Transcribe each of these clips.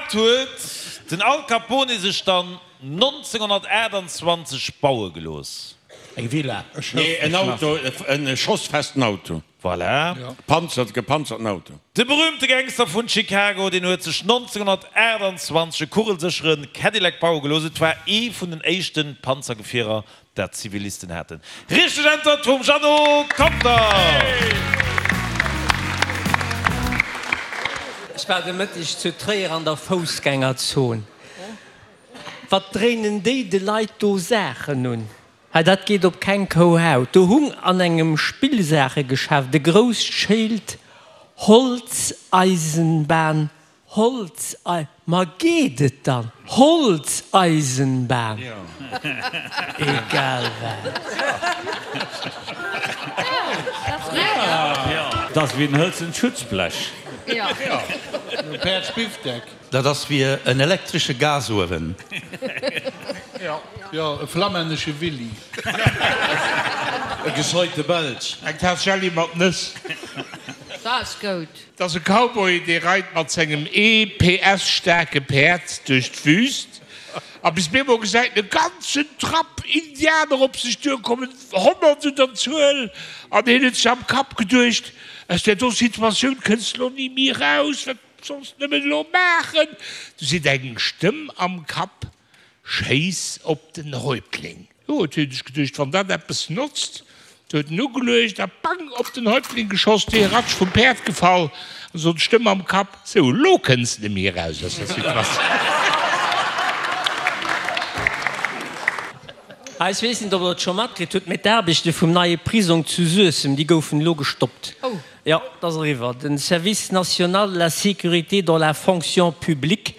Wat huet den Al Capone sech dann 1928 baue gelooss? Eng Villa. Nee, en Auto, e schossfesten Auto. Voilà. Panzert, gepanzerten Auto. De berüümte Gangster vun Chicago, deen huet sech 1928 e kugelsécheren Cadillac baue gelooss. Et war ee vun den éischte Panzergefierer, dat Zivilisten haten. Richteg Äntwert vum Jeannot Conter! Ech war de Mëtteg zu Tréier an der Foussgängerzon. Wat dréinen déi de Leit do Saachen un? Hei, dat geet op keng Kouhaut. Do hung an engem Spillsaachegeschäft e grousst Schéild, Holzeisenbahn, Holzei. Ma geet et dann? Holzeisenbahn! Egal wat. Dat ass wéi en hëlzent Schutzblech. Dat ass wéi en elektresche Gasuewen. Jo, e flammännesche Willy. E gescheite Belsch. Eng Taass Jelli mat Nëss. Dat ass goud. 't ass e Cowboy, dee reit mat sengem ee PS staarke Päerd duerch d'Wüst a bis bemol gesäit en e ganzen Trapp Indianer op sech duerkommen, 100 un der Zuel, an hien huet sech am Kapp geduecht, Aus där do Situatioun kënns de lo ni méi eraus, wat Solls nëmmen elo maachen! Du seet eng Stëmm am Kapp, Schéiss op den Häuptling! Jo, huet hie sech geduecht, wann dat eppes notzt. Du huet en ugeluecht a bang! op den Häuptling geschoss, dee ratsch vum Päerd gefall. An sot d'Stëmm am Kapp, Sou, elo kënns de méi eraus aus der Situatioun. Ah, ech weess net, ob Der et scho matkritt hutt, mee d'Aarbechte vum neie Prisong zu Suessem, déi goufen elo gestoppt. Jo, et ass eriwwer. Den Service national de la sécurité dans la fonction publique,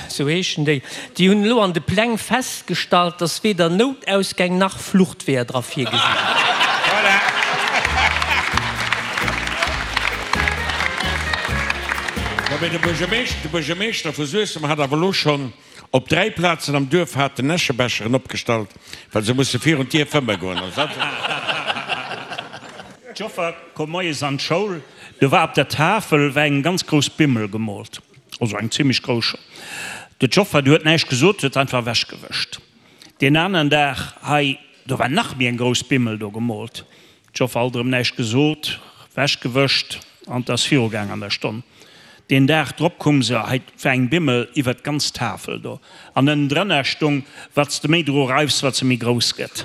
sou heeschen déi, déi hunn elo an de Pläng festgestallt, dass weder Noutausgäng nach Fluchtweeër dra virgesi sinn. Jo, mee de Buergermeeschter vu Suessem hat awer elo schonn Op 3 Plazen am Duerf haten Äschebecheren opgestallt, well se musse virun d'Dier fëmme goen. D'Joffer koum moies an d'Schoul, do war op der Tafel war eng ganz grouss Bimmel gemoolt, also eng zimlech grouss schon. Du d'Joffer, déi huet näischt gesot, huet einfach ewechgewëscht. Deen aneren Dag, hei, do war nach méi eng grouss Bimmel do gemoolt. D'Joffer alt erëm näischt gesot, wech gewëscht an 't ass viru gaang an der Stonn. Deen Dag drop koum se, hei 't war eng Bimmel iwwert d'ganz Tafel do an ënnendrënner stung, Wat s de méi dru reifs, wat se méi grouss gëtt.